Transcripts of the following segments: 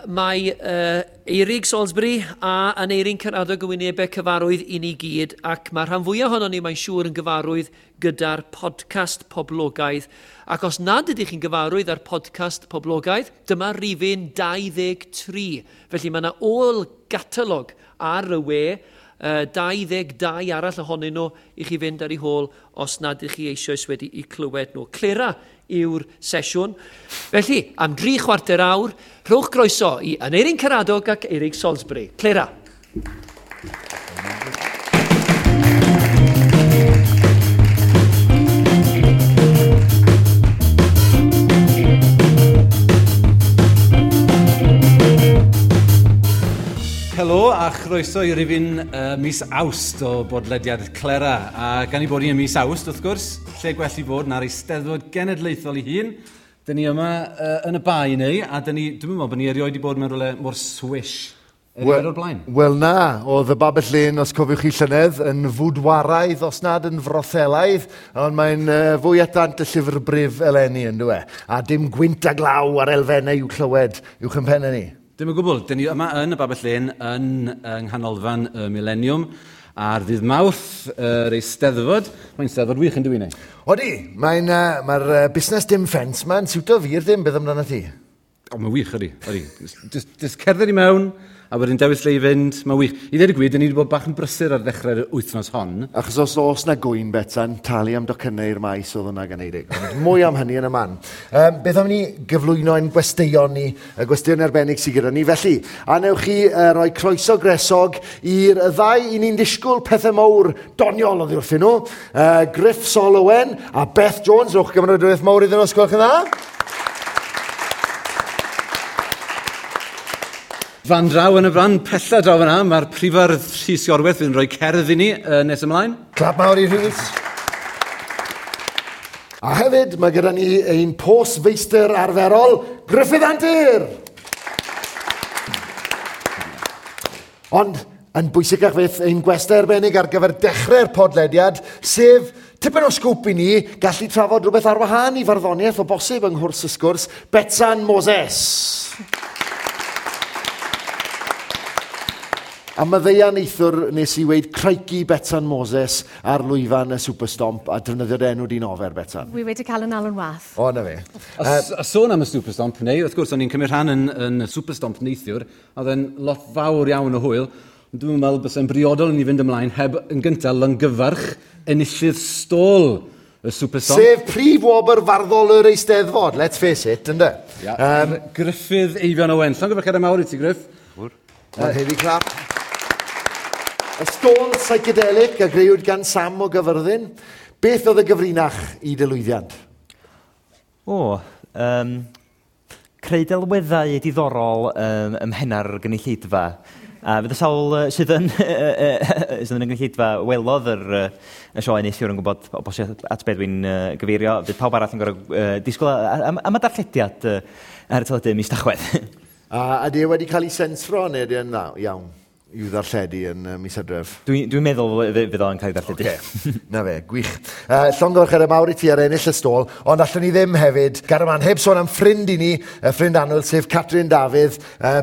Mae Eurig Salisbury a Aneirin Karadog yn wynebau cyfarwydd i ni gyd, ac mae rhan fwyaf ohonon ni, mae'n siŵr, yn gyfarwydd gyda'r podcast poblogaidd. Ac os nad ydych chi'n gyfarwydd â'r podcast poblogaidd, dyma rifyn 23. Felly mae yna ôl gatalog ar y we, 22 arall ohonyn nhw i chi fynd ar eu hôl os nad ydych chi eisoes wedi'u clywed nhw. Clera yw'r sesiwn. Felly, am 3/4 awr, rhowch groeso i Aneirin Karadog ac Eurig Salisbury. Clera. Helo a chroeso i rifyn mis Awst o bodlediad Clera. A gan i bod ni ym mis Awst, wrth gwrs, lle gwell i fod na'r Eisteddfod Genedlaethol ei hun. Dyn ni yma yn y bae neu, a dyn ni, dwi'n meddwl bod ni erioed wedi bod mewn rhywle mor swish erioed o'r blaen. Wel na, oedd y Babell Lên, os cofiwch chi llynedd, yn fwdwaraidd, os nad yn frothelaidd, ond mae'n fwy at ddant y llyfr brif eleni, yn dyw e. A dim gwynt a glaw ar elfennau i'w clywed uwch yn pennau ni. Dim o gwbl. Dyn ni yma yn y Babell Lên yn yng Nghanolfan y Mileniwm ar ddydd Mawrth yr Eisteddfod. Mae'n Steddfod wych yn dwi, neu? Odi, mae'n, mae'r busnes dim ffens ma'n siwto fi'r dim, beth amdano ti? O, mae'n wych, ydi. Ydi. Just cerdded i mewn, a wedyn dewis lle i fynd, mae'n wych. I ddweud y gwir, dyn ni wedi bod bach yn brysur ar ddechrau'r wythnos hon. Achos os oes na gwyn, Betsan, talu am docynnau i'r maes oedd hwnna gan Eirig. Ond mwy am hynny yn y man. Beth am ni gyflwyno ein gwesteion ni, y gwesteion arbennig sydd gyda ni. Felly, a newch chi roi croeso gresog i'r ddau i ni'n disgwyl pethau mawr doniol oddi wrthyn nhw. Gruff Sol Owen a Beth Jones. Rhowch gymeradwyaeth mawr iddyn nhw, os gwelwch yn dda. Fan draw yn y fan, pella draw fyna, mae'r prifardd Rhys Iorwerth fydd yn rhoi cerdd i ni nes ymlaen. Clap mawr i Rhys. A hefyd, mae gyda ni ein postfeistr arferol, Gruffydd Antur! Ond, yn bwysicach fyth, ein gwestai arbennig ar gyfer dechrau'r podlediad, sef tipyn o sgwp i ni gallu trafod rhywbeth ar wahân i farddoniaeth o bosib yng nghwrs y sgwrs, Betsan Moses. A maddeuan neithiwr nes i weud crikey Betsan Moses ar lwyfan y Superstomp a defnyddio'r enw di'n ofer, Betsan. Wi wedi cael yn alw'n wath. O, na fe. A sôn am y Superstomp, neu, wrth gwrs, o'n i'n cymryd rhan yn y Superstomp neithiwr, a oedd e'n lot fawr iawn o hwyl. Ond dwi'n meddwl bysa'n briodol i ni fynd ymlaen heb yn gyntaf longyfarch enillydd stôl y Superstomp. Sef prif wobr farddol yr Eisteddfod, let's face it, ynde? Ia. Gruffydd Eifion Owen. Llongyfarchiadau mawr i ti, Gruff. Mae'n heavy clap. Y stôl psychedelic a grëwyd gan Sam o Gyfyrddin. Beth oedd y gyfrinach i dy lwyddiant? O, creu delweddau diddorol ym mhenna'r gynulleidfa. A fydd y sawl sydd yn sydd yn y gynulleidfa welodd yr y sioe neithiwr yn gwybod o bosib at beth dwi'n gyfeirio. Fydd pawb arall yn gorfod disgwyl am y darllediad ar y teledu mis Tachwedd. A ydy e wedi cael ei sensro neu ydy e'n dda? Iawn, i'w ddarlledu yn mis Hydref? Dwi'n meddwl fydd o'n cael ei ddarlledu. Okay. Na fe, gwych. Llongyfarchiadau mawr i ti ar ennill y stôl, ond allwn ni ddim hefyd, Garaman, heb sôn am ffrind i ni, y ffrind annwyl, sef Catrin Dafydd,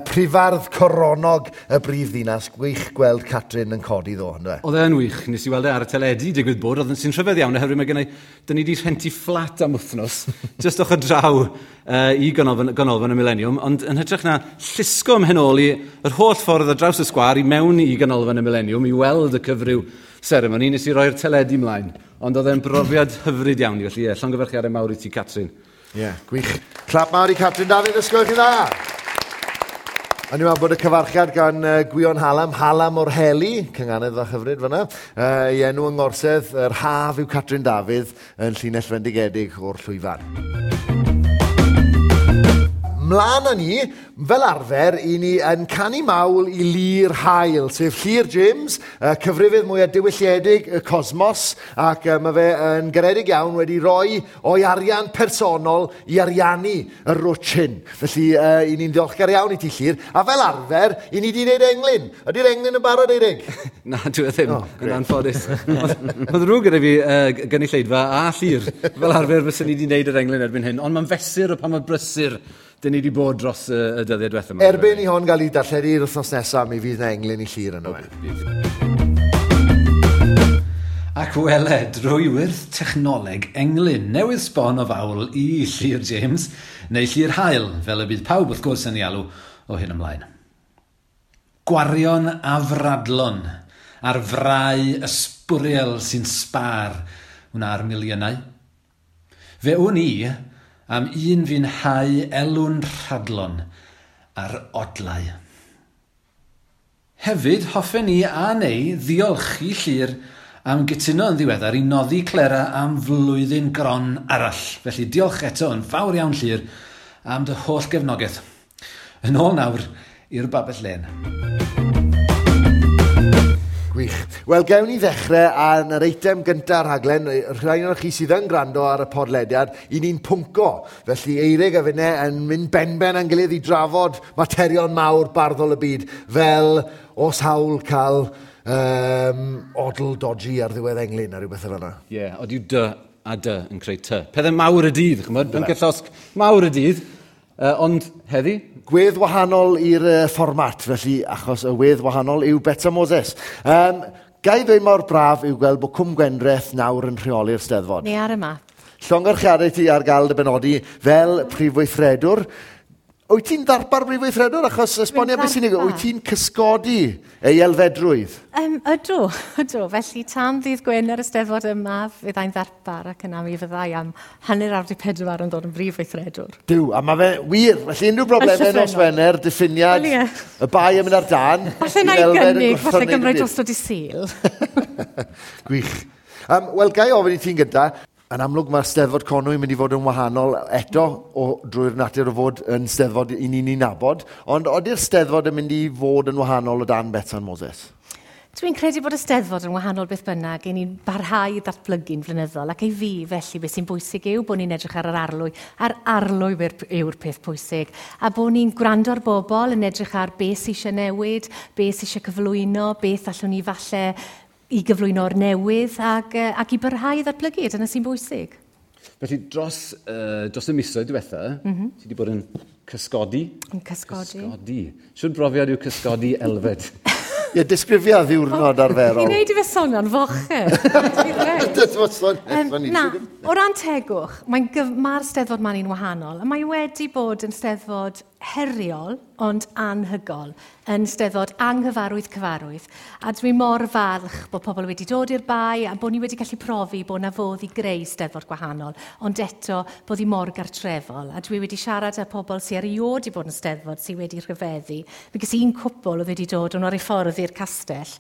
prifardd coronog y brif ddinas. Gwych gweld Catrin yn codi ddo, yndyfe? Oedd e'n wych, nes i weld e ar y teledu, digwydd bod, oedd yn sy'n rhyfedd iawn, oherwydd mae gennai, dyn ni wedi rhentu fflat am wythnos, jyst ochr draw i ganolfan y Mileniwm, ond yn hytrach na llusgo ym mhen ôl i yr holl ffordd ar draws y sgwâr i mewn i ganolfan y Mileniwm i weld y cyfryw seremoni, nes i roi'r teledu ymlaen. Ond oedd e'n brofiad hyfryd iawn i, felly ie, llongyfarchiadau mawr i ti, Catrin. Ie, yeah, gwych. Clap mawr i Catrin Dafydd, ysgol chi dda! A ni'n meddwl bod y cyfarchiad gan Gwion Halam, Halam o'r Heli, cynganedd a hyfryd fyna, ei enw yng ngorsedd, yr haf yw Catrin Dafydd yn llinell fendigedig o'r llwyfan. Mlaen â ni, fel arfer, i ni yn canu mawl i Llyr Haul, sef Llyr James, cyfrifydd mwyaf diwylliedig y cosmos, ac mae fe yn garedig iawn wedi rhoi o'i arian personol i ariannu y rwtsh hyn. Felly, i ni'n ddiolchgar iawn i ti, Llyr. A fel arfer, i ni wedi gwneud englyn. Ydy'r englyn yn barod, Eirig? Na, dwi e ddim, Oh, yn anffodus. Mae'n ddrwg gyda fi gynulleidfa a Llyr. Fel arfer, fyswn ni wedi gwneud yr englyn erbyn hyn, ond mae'n fesur o pa mor brysur dyn ni wedi bod dros y, y dyddiau diwethaf yma. Erbyn i hon gael ei darlledu'r wythnos nesaf, mi fydd yna englyn i Llyr yno fe. Ac wele, drwy wyrth technoleg englyn newydd sbon o fawl i Llyr James, neu Llyr Hael, fel y bydd pawb wrth gwrs yn ei alw o hyn ymlaen. Gwarion afradlon ar frau ysbwriel sy'n sbar wna'r miliynau. Fe wn i am un fi'n hau elw'n rhadlon ar odlau. Hefyd, hoffen ni a neu ddiolch i Llyr am gytuno yn ddiweddar i noddi Clera am flwyddyn gron arall. Felly diolch eto yn fawr iawn Llyr am dy holl gefnogaeth. Yn ôl nawr i'r Babell Lên. Gwych. Wel, gewn ni ddechrau ar yr eitem gyntaf rhaglen, rhai o'r chi sydd yn gwrando ar y podlediad, i ni'n pwnco. Felly Eirig a finne yn mynd benben â'n gilydd i drafod materion mawr barddol y byd, fel os hawl cael odl dodgy ar ddiwedd englyn a rhywbeth fel yna. Ie, yeah, od yw dy a dy yn creu ty. Pethau mawr y dydd, chymod, pynciau llosg mawr y dydd. Ond heddi? Gwedd wahanol i'r fformat, felly, achos y wedd wahanol yw Betsan Moses. Ga i ddweud mor braf yw gweld bod Cwm Gwendraeth nawr yn rheoli'r Steddfod. Ni ar y map. Llongyfarchiadau ti ar gael dy benodi fel prif weithredwr. Wyt ti'n ddarpar brif weithredwr? Achos esbonio beth sy'n ei... Wyt ti'n cysgodi ei elfedrwydd? Ydw, ydw. Felly tan ddydd Gwener y Steddfod yma, fyddai'n ddarpar ac yna mi fyddai am 3:30 yn dod yn brif weithredwr. Duw, a mae fe wir. Felly unrhyw broblemau nos Wener, diffiniad, well, yeah. Y bai yn mynd ar dan. Falle na i gynnig, falle gymryd drosto di Sul. Gwych. Wel, ga i ofyn i ti'n gyda, yn amlwg mae'r Steddfod Conwy yn mynd i fod yn wahanol eto o, drwy'r natur o fod yn Steddfod i ni'n ei nabod, ond ody'r Steddfod yn mynd i fod yn wahanol o dan Betsan Moses? Dwi'n credu bod y Steddfod yn wahanol beth bynnag, i ni'n barhau i ddatblygu'n flynyddol, ac i fi felly beth sy'n bwysig yw bod ni'n edrych ar yr arlwy, a'r arlwy yw'r peth pwysig, a bod ni'n gwrando ar bobl yn edrych ar beth sy'n eisiau newid, beth sy'n eisiau cyflwyno, beth allwn ni falle i gyflwyno'r newydd ac i barhau i ddatblygu, dyna sy'n bwysig. Felly dros y misoedd diwetha, ti wedi bod yn cysgodi? Yn cysgodi. Cysgodi. Shwd brofiad yw cysgodi Elfed? Ie, disgrifia ddiwrnod arferol. Chi'n neud i fe sonio'n fochyn. Na, o ran tegwch, mae'r Steddfod ma'n un wahanol, a mae wedi bod yn Steddfod heriol, ond anhygol, yn Steddfod anghyfarwydd cyfarwydd. A dwi mor falch bod pobl wedi dod i'r bae a bod ni wedi gallu profi bod na fodd i greu Steddfod gwahanol, ond eto bod hi mor gartrefol. A dwi wedi siarad â pobl sydd erioed wedi bod yn Steddfod sydd wedi rhyfeddu. Mi ges un cwpl oedd wedi dod o'n ar ei ffordd i'r castell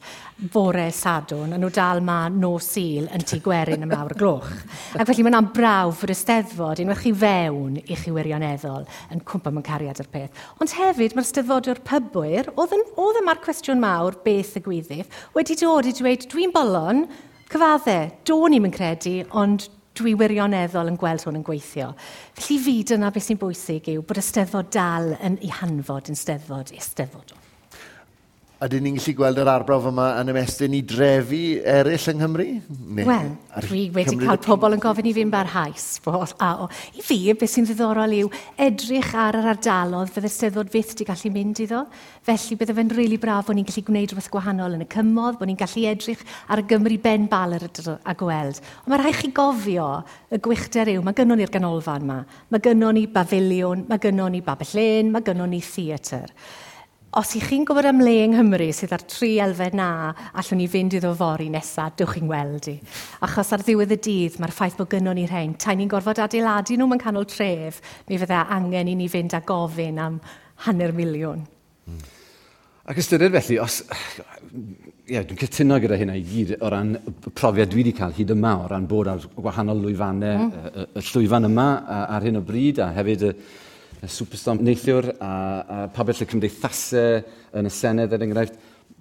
bore Sadwrn, a nhw dal ma nos Sul yn Tŷ Gwerin am lawr y gloch. Ac felly mae'n brawf fod y Steddfod, unwaith chi fewn i chi wirioneddol, yn cwmpa mewn cariad ar peth. Ond hefyd mae'r Steddfodwr pybwyr, oedd yma'r cwestiwn mawr beth y gwyddydd, wedi dod i dweud, dwi'n bolon, cyfadde, do'n i'm yn credu, ond dwi wirioneddol yn gweld hwn yn gweithio. Felly fi dyna beth sy'n bwysig yw bod y Steddfod dal yn ei hanfod yn Steddfod Eisteddfodol. Ydyn ni'n gallu gweld yr arbrawf yma yn ymestyn i drefi eraill yng Nghymru? Wel, dwi wedi cael pobl yn gofyn i fi'n barhaus. I fi, beth sy'n ddiddorol yw edrych ar yr ardalodd fydde'r Steddfod fyth wedi gallu mynd iddo. Felly bydde fe'n rili braf bod ni'n gallu gwneud rhywbeth gwahanol yn y cymoedd, bod ni'n gallu edrych ar y Gymru ben baler a gweld. Ond mae rhaid chi gofio y gwychder yw, mae gynnon ni'r ganolfan yma, mae gynnon ni bafiliwn, mae gynnon ni Babell Lên, mae gynnon ni theatr. Os ych chi'n gwybod am le yng Nghymru sydd ar tri elfen na, allwn ni fynd iddo fory nesaf, dewch chi'n weld i. Achos ar ddiwedd y dydd, mae'r ffaith bod gynnon ni rhain, tai ni'n gorfod adeiladu nhw mewn canol tref, mi fydde angen i ni fynd a gofyn am 500,000. Ac ystyried felly, os... Ie, dwi'n cytuno gyda hynna i gyd o ran y profiad dwi wedi cael hyd yma, o ran bod ar wahanol lwyfannau, y llwyfan yma ar hyn o bryd, a hefyd y Superstorm neithiwr a pabell y cymdeithasau yn y Senedd, er enghraifft.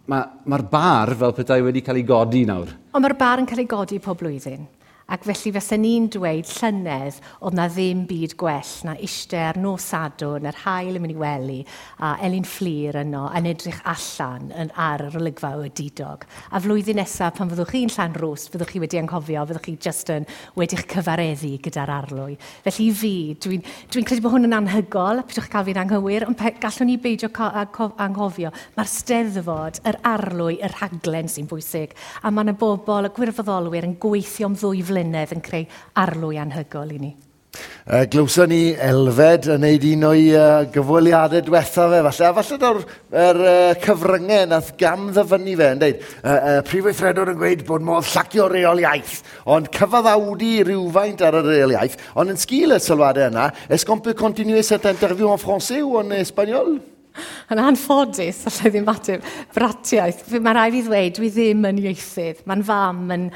Mae'r bar fel petai wedi cael ei godi nawr. Ond mae'r bar yn cael ei godi pob blwyddyn. Ac felly fysen ni'n dweud llynedd oedd na ddim byd gwell na eistedd ar nos Sadwrn, yr haul yn mynd i wely, a Elin Fflur yno yn edrych allan yn, ar yr olygfa o didog. A flwyddyn nesaf pan fyddwch chi'n Llanrwst, fyddwch chi wedi anghofio, fyddwch chi just yn wedi'ch cyfareddu gyda'r arlwy. Felly i fi, dwi'n dwi credu bod hwn yn anhygol, pidwch cael fi'n anghywir, ond gallwn ni beidio anghofio. Mae'r steddfod, yr arlwy, y rhaglen sy'n bwysig. A mae yna bobl, y gwirfoddolwyr yn gweithio am 2 flynedd yn creu arlwy anhygol i ni. Glywson ni Elfed yn neud un o'i gyfweliadau diwethaf fe, falle. A falle daw'r cyfryngau nath gam ddyfynnu fe yn deud, prif weithredwr yn gweud bod modd llacio reol iaith, ond cyfaddawdu rhywfaint ar y reol iaith, ond yn sgil y sylwadau yna, est-ce qu'on peut continuer cette interview en français ou en espagnol? Yn anffodus, allai ddim ateb, bratiaeth. Mae rhaid fi ddweud, dwi ddim yn ieithydd. Mae'n fam yn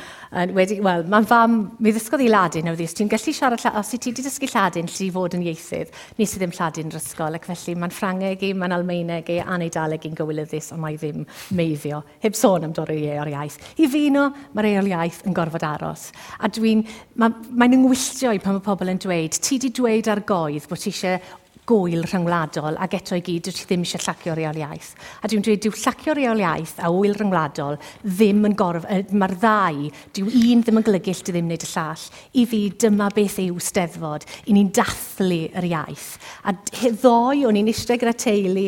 wedi, wel, mae'n fam, mi ddysgodd i Ladin, oedd hi, os ti'n gallu siarad, os ti wedi dysgu Lladin, lle i fod yn ieithydd, nes i ddim Lladin yr ysgol, ac felly mae'n Ffrangeg i, mae'n Almaeneg i, a'n Eidaleg i'n gywilyddus, ond mae ddim meiddio. Heb sôn am dorri o'r iaith. I fi no, mae'r eol iaith yn gorfod aros. A dwi'n, mae'n yngwylltio i pan mae pobl yn dweud, ti di dweud ar goedd bod ti eisiau gwyl rhyngwladol ac eto i gyd dwi ddim eisiau llacio reol iaith. A dwi'n dweud, dyw llacio reol iaith a wyl rhyngwladol ddim yn gorf... Mae'r ddau, dyw un ddim yn golygu ll di ddim wneud y llall. I fi, dyma beth yw steddfod. I ni'n dathlu yr iaith. A ddoe, o'n i'n eistedd gyda teulu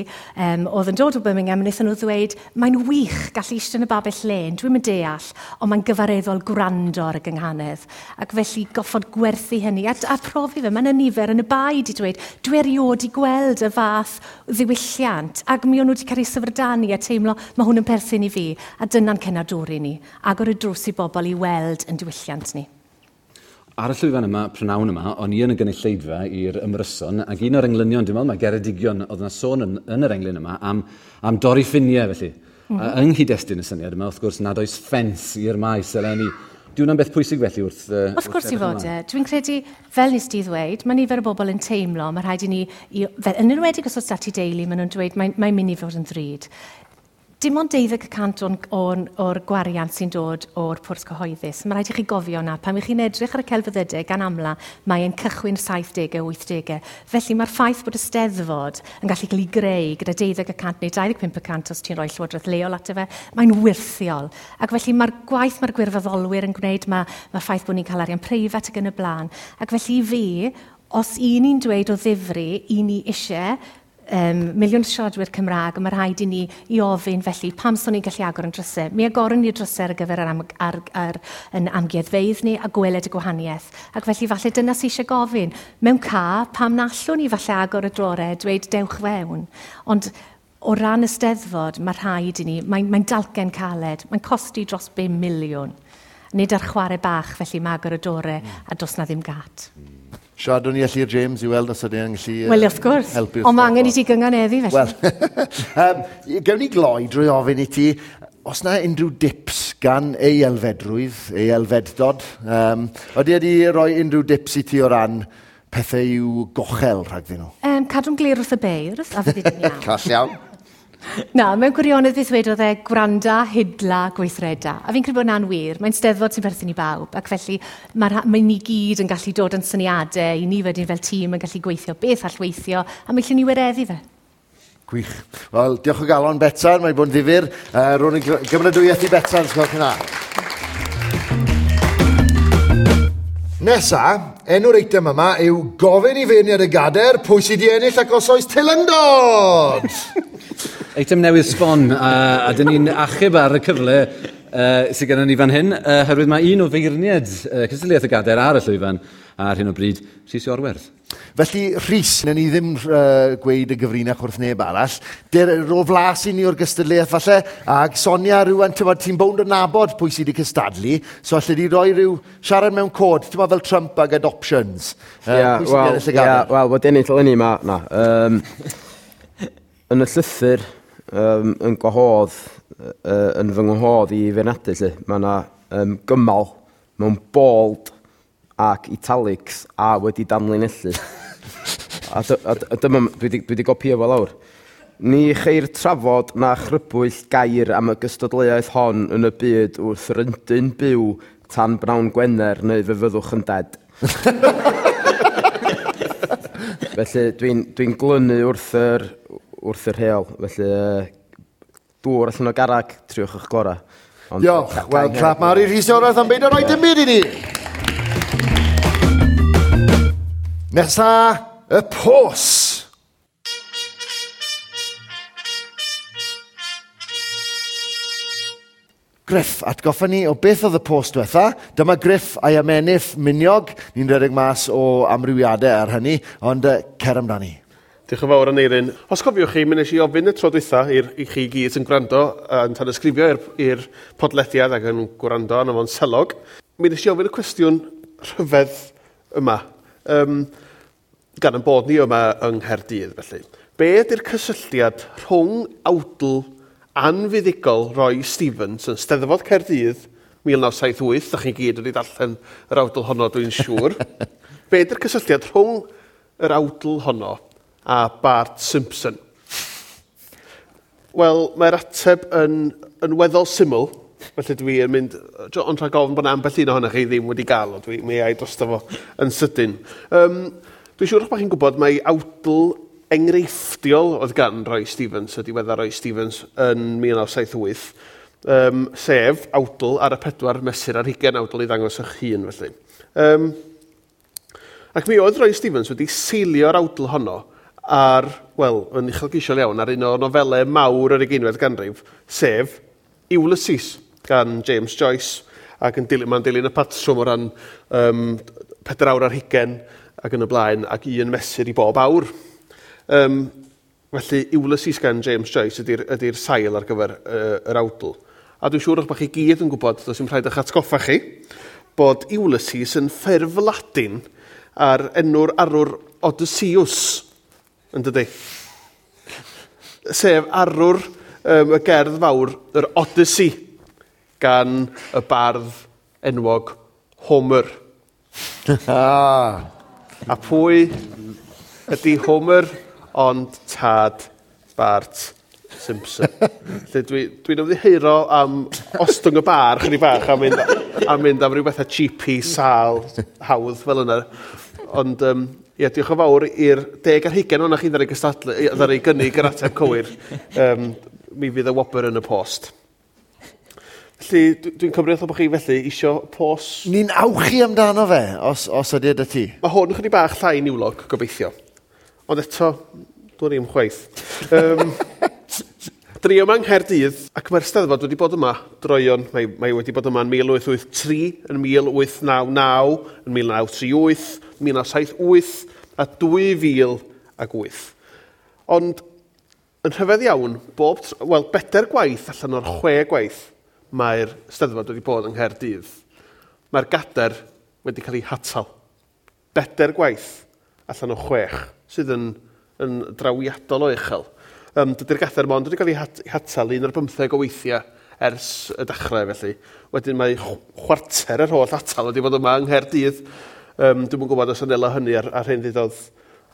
oedd yn dod o Birmingham, a wnaethon nhw ddweud, mae'n wych gallu eistedd yn y babell lên, dwi'm yn deall, ond mae'n gyfareddol gwrando ar y gynghanedd. Ac felly goffod gwerthu hynny a profi fe, mae yna nifer yn y bae di dweud, dwi erioed i gweld y fath ddiwylliant, ac mi o'n nhw wedi cael eu syfrdanu a teimlo mae hwn yn perthyn i fi, a dyna'n cenadwri ni, agor y drws i bobl i weld yn diwylliant ni. Ar y llwyfan yma, prynawn yma, o'n i yn y gynulleidfa i'r ymryson, ac un o'r englynion, dwi'n meddwl, mae Geredigion, oedd yna sôn yn yr englyn yma am dorri ffiniau, felly. A yng nghyd-destun y syniad yma, wrth gwrs, nad oes ffens i'r maes eleni. Di hwnna'n beth pwysig felly wrth... Wrth gwrs i fod e. Dwi'n credu, fel nes di ddweud, mae nifer o bobl yn teimlo, mae rhaid i ni, fel, yn enwedig os oes dati deulu, maen nhw'n dweud mae'n mynd i fod yn ddrud. Dim ond 12% o'r gwariant sy'n dod o'r pwrs cyhoeddus. Mae rhaid i chi gofio na, pan ych chi'n edrych ar y celfyddydau gan amla, mae'n cychwyn 70au, 80au. Felly mae'r ffaith bod y steddfod yn gallu cael ei greu gyda 12% neu 25% os ti'n rhoi llywodraeth leol ato fe, mae'n wyrthiol. Ac felly mae'r gwaith mae'r gwirfoddolwyr yn gwneud, mae'r ffaith bod ni'n cael arian preifat ac yn y blaen. Ac felly i fi, os i ni'n dweud o ddifri, i ni eisiau miliwn siaradwyr Cymraeg, a mae rhaid i ni i ofyn felly pam so ni'n gallu agor yn drysau. Mi agoron ni'r drysau ar gyfer yr yn amgueddfeydd ni a gweled y gwahaniaeth. Ac felly falle dyna sy'n eisiau gofyn. Mewn ca, pam na allwn ni falle agor y drore, dweud dewch fewn. Ond o ran y steddfod, mae rhaid i ni, mae'n dalcen caled, mae'n costi dros 5 miliwn. Nid ar chwarae bach, felly mae agor y dore a dos na ddim gat. Siaradwn ni â Llyr James i weld os ydyn ni'n gallu Wel, wrth gwrs. helpu. Ond mae angen i ti gynganeddu, felly. Wel, gewn ni gloi drwy ofyn i ti, os na unrhyw dips gan ei elfedrwydd, ei elfeddod, ydy wedi rhoi unrhyw dips i ti o ran pethau i'w gochel rhagddyn nhw? Cadw'n glir wrth y beirdd, a fydd hi'n iawn. Call iawn. Na, mewn gwirionedd beth wedodd e, gwranda, hidla, gweithreda. A fi'n credu bod hwnna'n wir. Mae'n steddfod sy'n perthyn i bawb, ac felly mae ni gyd yn gallu dod yn syniadau, i ni wedyn fel tîm yn gallu gweithio beth all weithio, a mi allwn ni wireddu fe. Gwych. Wel, diolch o galon, Betsan, mae'n bod yn ddifyr. Rown i gymeradwyaeth i Betsan, os gwelwch yn dda. Nesa, enw'r eitem yma yw gofyn i feirniad y gader pwy sydd wedi ennill ac os oes teilyngdod! Eitem newydd sbon, a dyn ni'n achub ar y cyfle sydd gennym ni fan hyn, oherwydd mae un o feirniad cystadleuaeth y gader ar y llwyfan ar hyn o bryd, Rhys Iorwerth. Felly, Rhys, wnawn ni ddim gweud y gyfrinach wrth neb arall. Ro flas i ni o'r gystadleuaeth falle, ac Sonia rhywun, ti'n bownd o nabod pwy sydd wedi cystadlu, so alle di roi rhyw siarad mewn cod, ti'n fel Trump ag adoptions. Pwy sydd wedi ennill y gader? Wel, wedi ennill eleni ma, na. Yn y llythyr, yn gwahodd, yn fy ngwahodd i feirniadu, lle, mae yna gymal mewn bold ac italics a wedi danlinellu. A dyma, dwi wedi gopio fo lawr. Ni cheir trafod na chrybwyll gair am y gystadleuaeth hon yn y byd wrth ryndyn byw tan bnawn Gwener neu fe fyddwch yn dead. Felly dwi'n dwi glynu wrth yr, wrth yr rheol. Felly dŵr allan o garag, triwch eich gorau. Ond, Diolch. Wel, clap mawr i Rhys Iorwerth am beidio rhoi dim byd i ni. Nesa, y pos. Griff, atgoffa ni o beth oedd y post diwetha. Dyma Griff a'i amenydd miniog. Ni'n rhedeg mas o amrywiadau ar hynny, ond cer amdani. Diolch yn fawr, Aneirin. Os cofiwch chi, mi wnes i ofyn y tro dwytha i chi gyd sy'n gwrando yn tanysgrifio i'r podlediad ac yn gwrando arno fo'n selog. Mi wnes i ofyn y cwestiwn rhyfedd yma, gan ein bod ni yma yng Nghaerdydd, felly. Be ydy'r cysylltiad rhwng awdl anfuddugol Roy Stevens yn Steddfod Caerdydd 1978, da chi gyd wedi darllen yr awdl honno, dwi'n siŵr. Be ydy'r cysylltiad rhwng yr awdl honno a Bart Simpson? Wel, mae'r ateb yn weddol syml, felly dwi yn mynd, ond rhag ofn bod 'na ambell un ohonoch chi ddim wedi gael o, mi ai drosto fo yn sydyn. Dwi'n siŵr eich bod chi'n gwybod mai awdl enghreifftiol oedd gan Roy Stevens, y diweddar Roy Stevens, yn 1978, sef awdl ar y 4 mesur ar 20, awdl i ddangos eich hun, felly. Ac mi oedd Roy Stevens wedi seilio'r awdl honno ar, wel, yn uchelgeisiol iawn, ar un o nofelau mawr yr 20fed ganrif, sef Ulysses gan James Joyce, ac yn dilyn, mae'n dilyn y patrwm o ran 4 awr ar 20 ac yn y blaen, ac un mesur i bob awr. Felly, Ulysses gan James Joyce ydy'r sail ar gyfer yr awdl. A dwi'n siŵr eich bod chi gyd yn gwybod, does dim rhaid eich atgoffa chi, bod Ulysses yn ffurf Ladin ar enw'r arwr Odysseus, yn dydi? Sef arwr y gerdd fawr, yr Odyssey, gan y bardd enwog Homer. A pwy ydy Homer ond tad Bart Simpson? Felly dwi'n ymddiheuro am ostwng y bar chydig bach a mynd am ryw bethau cheapy, sâl, hawdd fel yna. Ond ie, diolch yn fawr i'r 10 ar 20 ohonoch chi ddaru gystadlu, ddaru gynnig yr ateb cywir. Mi fydd y wobr yn y post. Felly, dwi'n cymryd bod chi felly isio pos. Ni'n awchu amdano fe, os ydy dy ti. Mae hwn chydig bach llai niwlog, gobeithio. Ond eto, dwi'n ddim chwaith. Dyn ni yma yng Nghaerdydd, ac mae'r Steddfod wedi bod yma droeon. Mae wedi bod yma yn 1883, yn 1899, yn 1938, 1978 a 2008. Ond yn rhyfedd iawn, bedair gwaith allan o'r 6 gwaith mae'r Steddfod wedi bod yng Nghaerdydd. Mae'r gadair wedi cael ei hatal. 4 gwaith allan o 6, sydd yn drawiadol o uchel. Dydy'r gadair mond wedi cael ei hatal 1 ar 15 o weithiau ers y dechrau, felly. Wedyn mae chwarter yr holl atal wedi bod yma yng Nghaerdydd. Dwi'm yn gwybod os anela hynny ar hyn ddudodd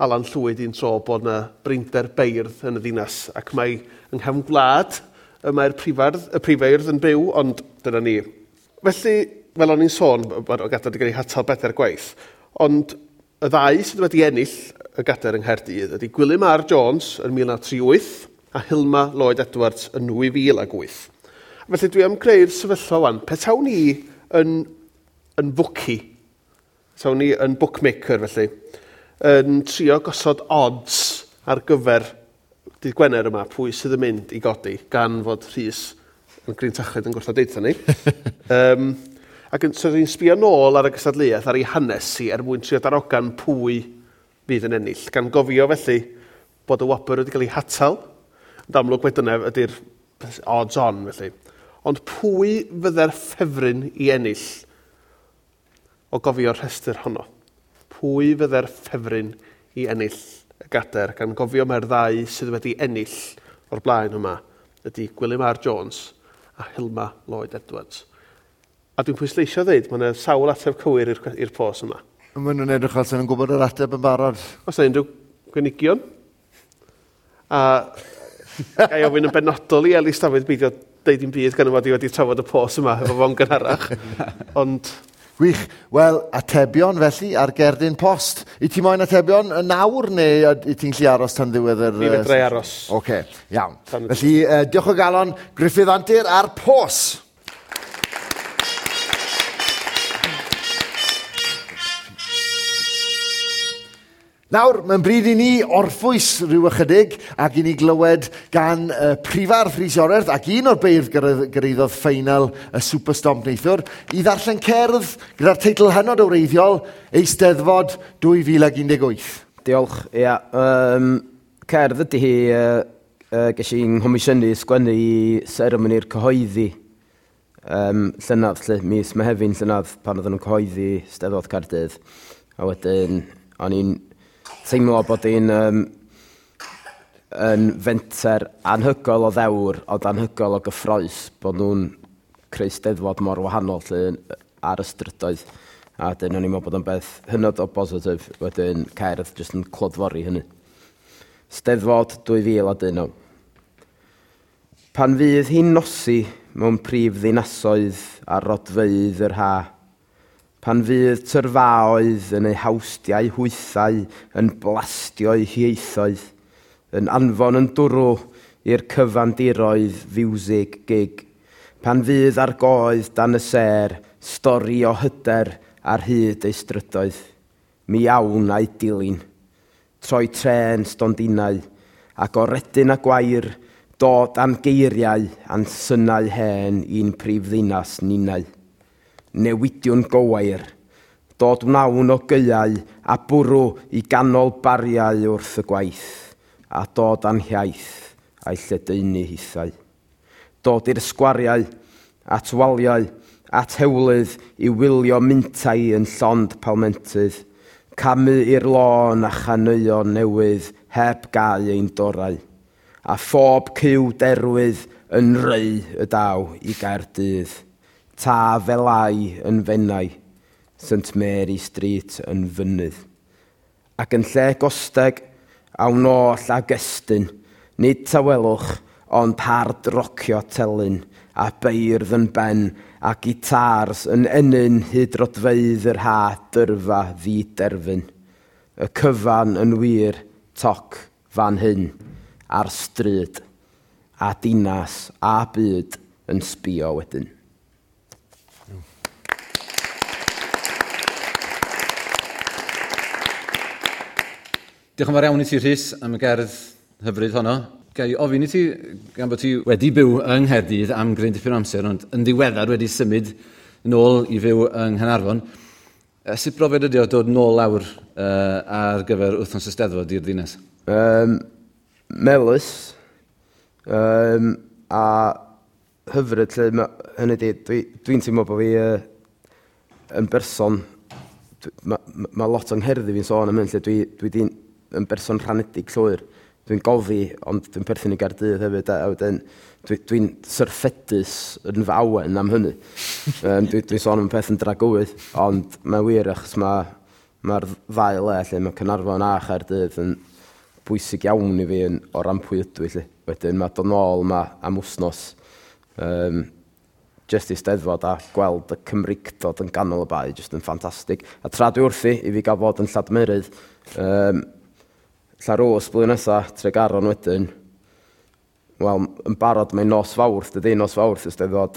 Alan Llwyd un tro bod yna brinder beirdd yn y ddinas, ac mae yng nghefn gwlad y mae'r prifeirdd yn byw, ond dyna ni. Felly, fel o'n i'n sôn, mae'r gadair wedi cael ei hatal 4 gwaith, ond y ddau sydd wedi ennill y gadair yng Nghaerdydd ydy Gwilym R. Jones yn 1938 a Hilma Lloyd Edwards yn 2008. Felly dwi am creu'r sefyllfa wan. Petawn ni yn bookie, petawn ni yn bookmaker felly, yn trio gosod odds ar gyfer dydd Gwener yma, pwy sydd yn mynd i godi, gan fod Rhys yn grintachlyd yn gwrthod deutha ni. Ac so ni'n sbio nôl ar y gystadleuaeth, ar ei hanes hi, er mwyn trio darogan pwy fydd yn ennill. Gan gofio felly bod y wobr wedi cael ei hatal, ond amlwg mai dyna ydy'r odds on felly. Ond pwy fydde'r ffefryn i ennill o gofio'r rhestr honno? Pwy fydde'r ffefryn i ennill y gadair, gan gofio mae'r ddau sydd wedi ennill o'r blaen yma ydy Gwilym R. Jones a Hilma Lloyd Edwards. A dwi'n pwysleisio ddeud, mae yna sawl ateb cywir i'r pos yma. Maen nhw'n edrych fel sy'n nhw'n gwybod yr ateb yn barod. Os yna unrhyw gynigion? A ga i ofyn yn benodol i Elis Dafydd beidio deud dim byd gan fod i wedi trafod y pos yma efo fo'n gynharach. Ond... Gwych. Wel, atebion felly ar gerdyn post. I ti moyn atebion yn nawr neu i ti'n gallu aros tan ddiwedd yr... Mi fedra i aros. Oce, iawn. Felly, diolch o galon, Gruffydd Antur a'r pos. Nawr, mae'n bryd i ni orffwys rhyw ychydig ac i ni glywed gan prifardd Rhys Iorwerth ac un o'r beirdd gyrhaeddodd ffeinal y Super Stomp neithiwr i ddarllen cerdd gyda'r teitl hynod o wreiddiol Eisteddfod 2018. Diolch, ia. Cerdd ydy hi, ges i'n nghomisiynu sgwennu i seremoni'r cyhoeddi llynedd, lle, mis Mehefin llynedd, pan oedden nhw'n cyhoeddi Steddfod Caerdydd. A wedyn, o'n i'n teimlo bod hi'n yn fenter anhygoel o ddewr, ond anhygoel o gyffrous, bod nhw'n creu Steddfod mor wahanol lle ar y strydoedd. A wedyn o'n i'n meddwl bod o'n beth hynod o bositif, wedyn cerdd jyst yn clodfori hynny. Steddfod 2019. Pan fydd hi'n nosi mewn prif ddinasoedd a rodfeydd yr ha, pan fydd tyrfaoedd yn eu hawstiau hwythau yn blastio'u hieithoedd, yn anfon yn dwrw i'r cyfandiroedd fiwsig gig, pan fydd ar goedd dan y sêr stori o hyder ar hyd ei strydoedd, mi awn a'i dilyn, troi trên stondinau, ac o redyn a gwair, dod am geiriau a'n synau hen i'n prif ddinas ninnau. Newidiwn gowair, dod wnawn o gaeau a bwrw i ganol bariau wrth y gwaith, a dod a'n hiaith a'i lledaenu hithau. Dod i'r sgwariau, at waliau, at hewlydd i wylio mintai yn llond palmentydd, camu i'r lôn a chaneuon newydd heb gau ein dorau, a phob cyw derwydd yn reu y daw i Gaerdydd. Ta felai yn Fenai, St Mary Street yn fynydd. Ac yn lle gosteg, awn oll ag estyn, nid tawelwch, ond hard rocio telyn, a beirdd yn ben, a gitars yn ennyn hyd rodfeydd yr ha dyrfa ddiderfyn. Y cyfan yn wir, toc fan hyn, ar stryd, a dinas, a byd yn sbio wedyn. Diolch yn fawr iawn i ti, Rhys, am y gerdd hyfryd honno. Ga i ofyn i ti, gan bod ti wedi byw yng Nghaerdydd am gryn dipyn o amser, ond yn ddiweddar wedi symud nôl i fyw yng Nghaernarfon. Sut brofiad ydi o dod nôl lawr ar gyfer wythnos y Steddfod i'r ddinas? Melys, a hyfryd, lle, hynny di, dwi'n teimlo bod fi yn berson, ma lot o'n ngherddi fi'n sôn am hyn, lle dwi di yn berson rhanedig llwyr. Dwi'n gofi, ond dwi'n perthyn i Gaerdydd hefyd, a wedyn dwi'n syrffedus yn fy awen am hynny. Dwi'n sôn am y peth yn dragywydd, ond mae'n wir achos mae'r ddau le lle mae Caernarfon a Chaerdydd yn bwysig iawn i fi o ran pwy ydw i lle. Wedyn mae dod nôl yma am wsnos, jyst i Steddfod a gweld y Cymreictod yn ganol y bae, jyst yn ffantastig. A tra dwi wrthi i fi gael fod yn Lladmerydd, Llanrwst blwyddyn nesaf, Tregaron wedyn. Wel, yn barod mae'n nos Fawrth, dydy, nos Fawrth y Steddfod.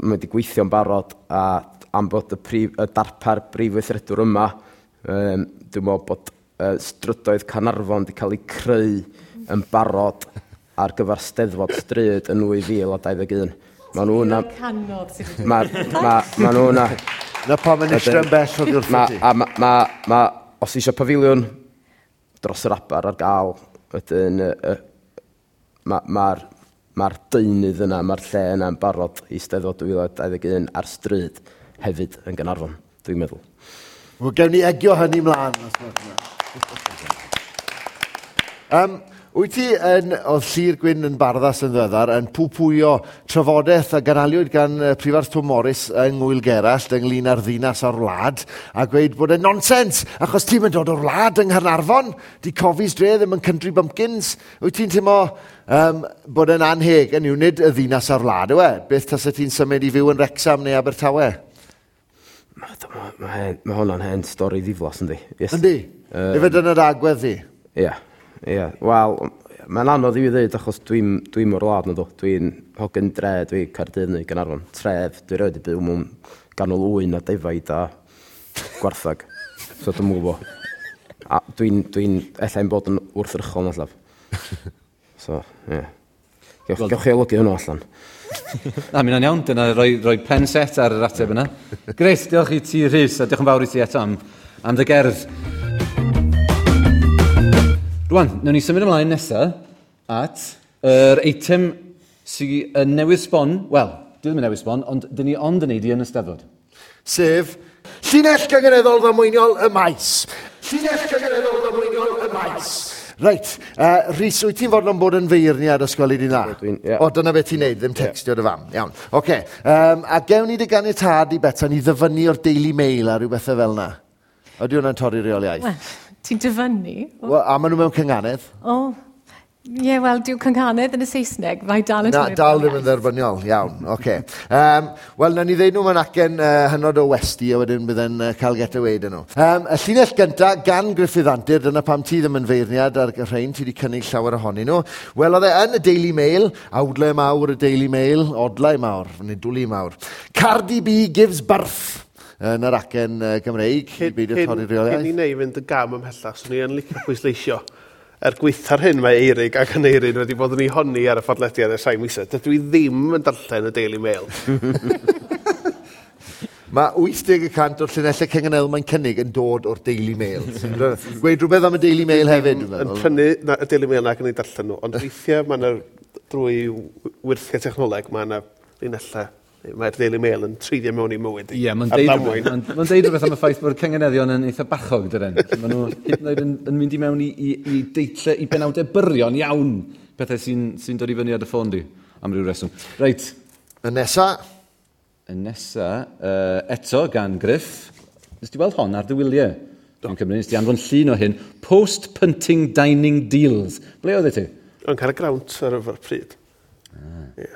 Mae wedi gweithio'n barod, a am bod y darpar brif weithredwr yma, dwi'n meddwl bod strydoedd Caernarfon wedi cael eu creu yn barod ar gyfer Steddfod Stryd yn 2021. Mae nhw yna... Canodd sydd wedi... Mae nhw yna... Na pam yn eistedd yn bell oddi wrth ti. Os eisiau pafiliwn dros yr aber ar gael, wedyn mae'r deunydd yna, mae'r lle yna yn barod i Steddfod 2021 ar stryd hefyd yn Gaernarfon, dwi'n meddwl. Wel, gewn ni egio hynny mlaen. Wyt ti yn, oedd Llyr Gwyn yn Barddas yn ddiweddar, yn pwpwyo trafodaeth a ganaliwyd gan Prifardd Twm Morys yng Ngwyl Gerallt ynglyn â'r ddinas a'r wlad, a gweud bod e'n nonsens, achos ti'n mynd dod o'r wlad yng Nghaernarfon, di Cofis dre ddim yn country bumpkins. Wyt ti'n teimlo bod e'n anheg, yn yw nid y ddinas a'r wlad, yw e? Beth tasa ti'n symud i fyw yn Wrexham neu Abertawe? Mae ma hwnna'n hen stori ddiflas, yndi? Yes. Yndi? Efe dyna'r agwedd di? Ie. Ie. Wel, mae'n anodd i fi ddweud achos dwi'n dwi o'r wlad na ddo. Dwi'n hogyn dre, dwi Caerdydd neu Gaernarfon. Tref, dwi rioed 'di byw mewn ganol ŵyn a defaid a gwarthag. So dwi'n gwybod. A dwi'n, dwi ella bod yn wrthrychol na llaf. So, ie. Yeah. Gewch, gewch chi olygu hwnnw allan. Na, mi hwnna'n iawn. Dyna roi pen set ar yr ateb yna. Grêt, diolch i ti Rhys, a diolch yn fawr i ti eto am dy gerdd. Rwan, nawn ni symud ymlaen nesaf at yr eitem sydd yn newydd sbon, wel, di ddim yn newydd sbon, ond dyn ni ond yn neud i yn y Steddfod. Sef, llinell gynganeddol ddamweiniol y maes. Llinell gynganeddol ddamweiniol y maes. Reit, Rhys, wyt ti'n fodlon bod yn feirniad os gweli di dda? Ie. O, dyna beth ti'n neud, ddim textio dy fam. Iawn, oce. A gewn ni dy ganiatâd i Betsan i ddyfynnu o'r Daily Mail a rhyw bethau fel yna? Ydy hwnna'n torri reoliaeth? Wel, ti'n dyfynnu? Wel, a maen nhw mewn cynganedd. O, ie, wel, dyw cynghanedd yn y Saesneg, mae dal yn Na, torri dal ddim yn reoliaeth. dderbyniol, iawn, oce. Wel, nawn ni ddeud nhw mewn acen hynod o westi, a wedyn bydde'n cael get away dyn nhw. Y llinell gynta gan Gruffydd Antur, dyna pam ti ddim yn feirniad ar y rhain, ti wedi cynnig llawer ohonyn nhw. Wel, oedd e yn y Daily Mail, awdlau mawr y Daily Mail, odlau mawr, neu dwli mawr. Cardi B gives birth yn yr acen Gymreig, i beidio torri reoliaeth. Cyn i neu fynd y gam ymhellach, swn i yn licio pwysleisio. Er gweitha'r hyn mae Eirig ac Aneirin wedi bod yn ei honni ar y podlediad ers rhai misoedd. Dydw i ddim yn darllen y Daily Mail. Mae 80% o'r llinellau cynganeddol mae'n cynnig yn dod o'r Daily Mail. Gweud rhywbeth am y Daily Mail hefyd, dwi'n Yn meddwl. prynu na, y Daily Mail ac yn ei darllen nhw, ond weithiau mae yna drwy wirthiau technoleg, mae yna linellau, mae'r Daily Mail yn treiddio mewn i mywyd i. Ie, mae'n Ar deud, ddamwain. ma'n deud rhywbeth am y ffaith bod cynganeddion yn eitha bachog, dydyn. Maen nhw hyd yn oed yn mynd i mewn i deitlau, i benawdau byrion iawn, pethau sy'n sy dod i fyny ar dy ffôn di, am ryw reswm. Reit, Y nesa, y nesa, eto gan Griff, nes ti weld hon ar dy wyliau? Dwi'n cymryd, nes ti anfon llun o hyn. Post-punting dining deals. Ble oedd e ti? Yn cael y grawnt ar y pryd. Ie.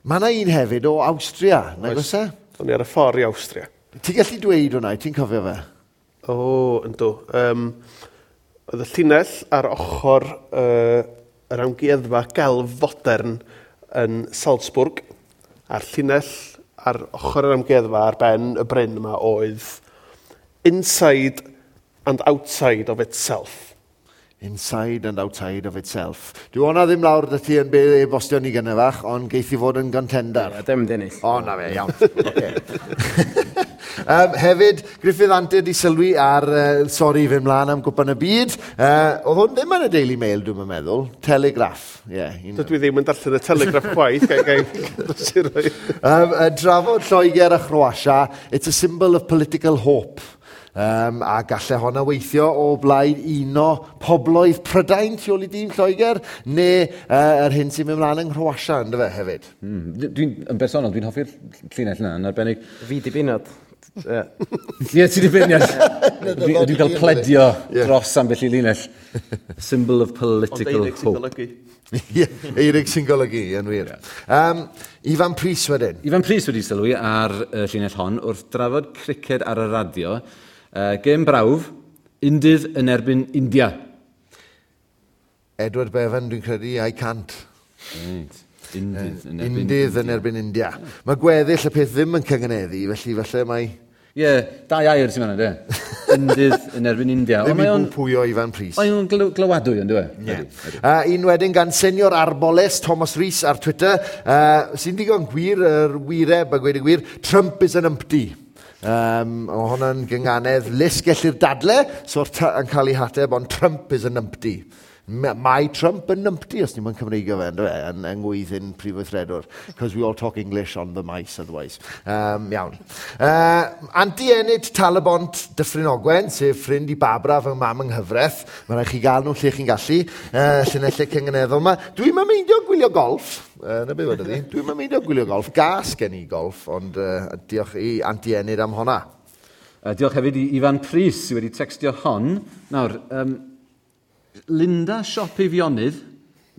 mae yna un hefyd o Awstria, nag oes e? O'n i ar y ffordd i Awstria. Ti'n gallu dweud hwnna, ti'n cofio fe? O, yndw. Oedd y llinell ar ochr yr amgueddfa gelf fodern yn Salzburg, a'r llinell ar ochr yr amgueddfa ar ben y bryn yma oedd inside and outside of itself. Inside and outside of itself. Dwi hwnna ddim lawr dy ti yn be e-bostio ni gynne fach, ond geith i fod yn contender. Ie, dim dennill. O, na fe, iawn. Okay. Hefyd, Gruffydd Antur di sylwi ar, sori, fynd mlaen am Gwpan y Byd. Oedd hwn ddim yn y Daily Mail, dwi'n meddwl. Telegraph, ie. Yeah, Dydw i ddim yn darllen y Telegraph chwaith, gai gai Drafod Lloegr a Chroatia, it's a symbol of political hope. A gallai honna weithio o blaid uno pobloedd Prydain tu ôl i dîm Lloegr, neu yr hyn sy'n mynd mlaen yng Nghroatia, ynddo fe, hefyd. Dwi'n, yn bersonol, dwi'n hoffi'r llinell yna, yn arbennig. Fi di binod. Ie. Ie, ti di beirniad. Dwi'n cael pledio dros ambell i linell. Symbol of Ond political Eirig sy'n hope. golygu. Ie, Eirig sy'n golygu, yn wir. Ifan Prys wedyn. Ifan Prys wedi sylwi ar y llinell hon wrth drafod criced ar y radio. Gêm brawf, undydd yn erbyn India. Edward Bevan, dwi'n credu, I can't. Reit. Undydd yn erbyn Undydd yn erbyn India. Mae gweddill y peth ddim yn cyngeneddu, felly falle mae Ie, dau air sy'n fan'na, de. Undydd yn erbyn India. ddim Ond i mae o'n bwpwyo Ifan Prys. mae o'n glywadwy, yn dwi? Ie. Un wedyn gan Senior Arboles, Thomas Rhys ar Twitter, sy'n digon gwir, yr wireb a gweud y gwir, Trump is an umpty. O hwnna'n gynganedd lys gellir dadle, so'r yn cael ei hateb, ond Trump is an umpty. Mae Trump yn numpty, os ni'n mynd Cymreigio fe, ynddo fe, yn ngwyddyn prif weithredwr. Because we all talk English on the mice otherwise. Iawn. Anti Enid Talybont Dyffryn Ogwen, sef ffrind i Barbara fy mam yng nghyfraith. Mae rhaid chi gael nhw lle chi'n gallu, llinellau cynganeddol yma. Dwi'n meindio gwylio golf. Na beth wedodd hi. Dwi'n meindio gwylio golf. Gas gen i golf, ond diolch i Anti Enid am honna. Diolch hefyd i Ifan Prys sydd wedi textio hon. Nawr, Linda Siop Eifionydd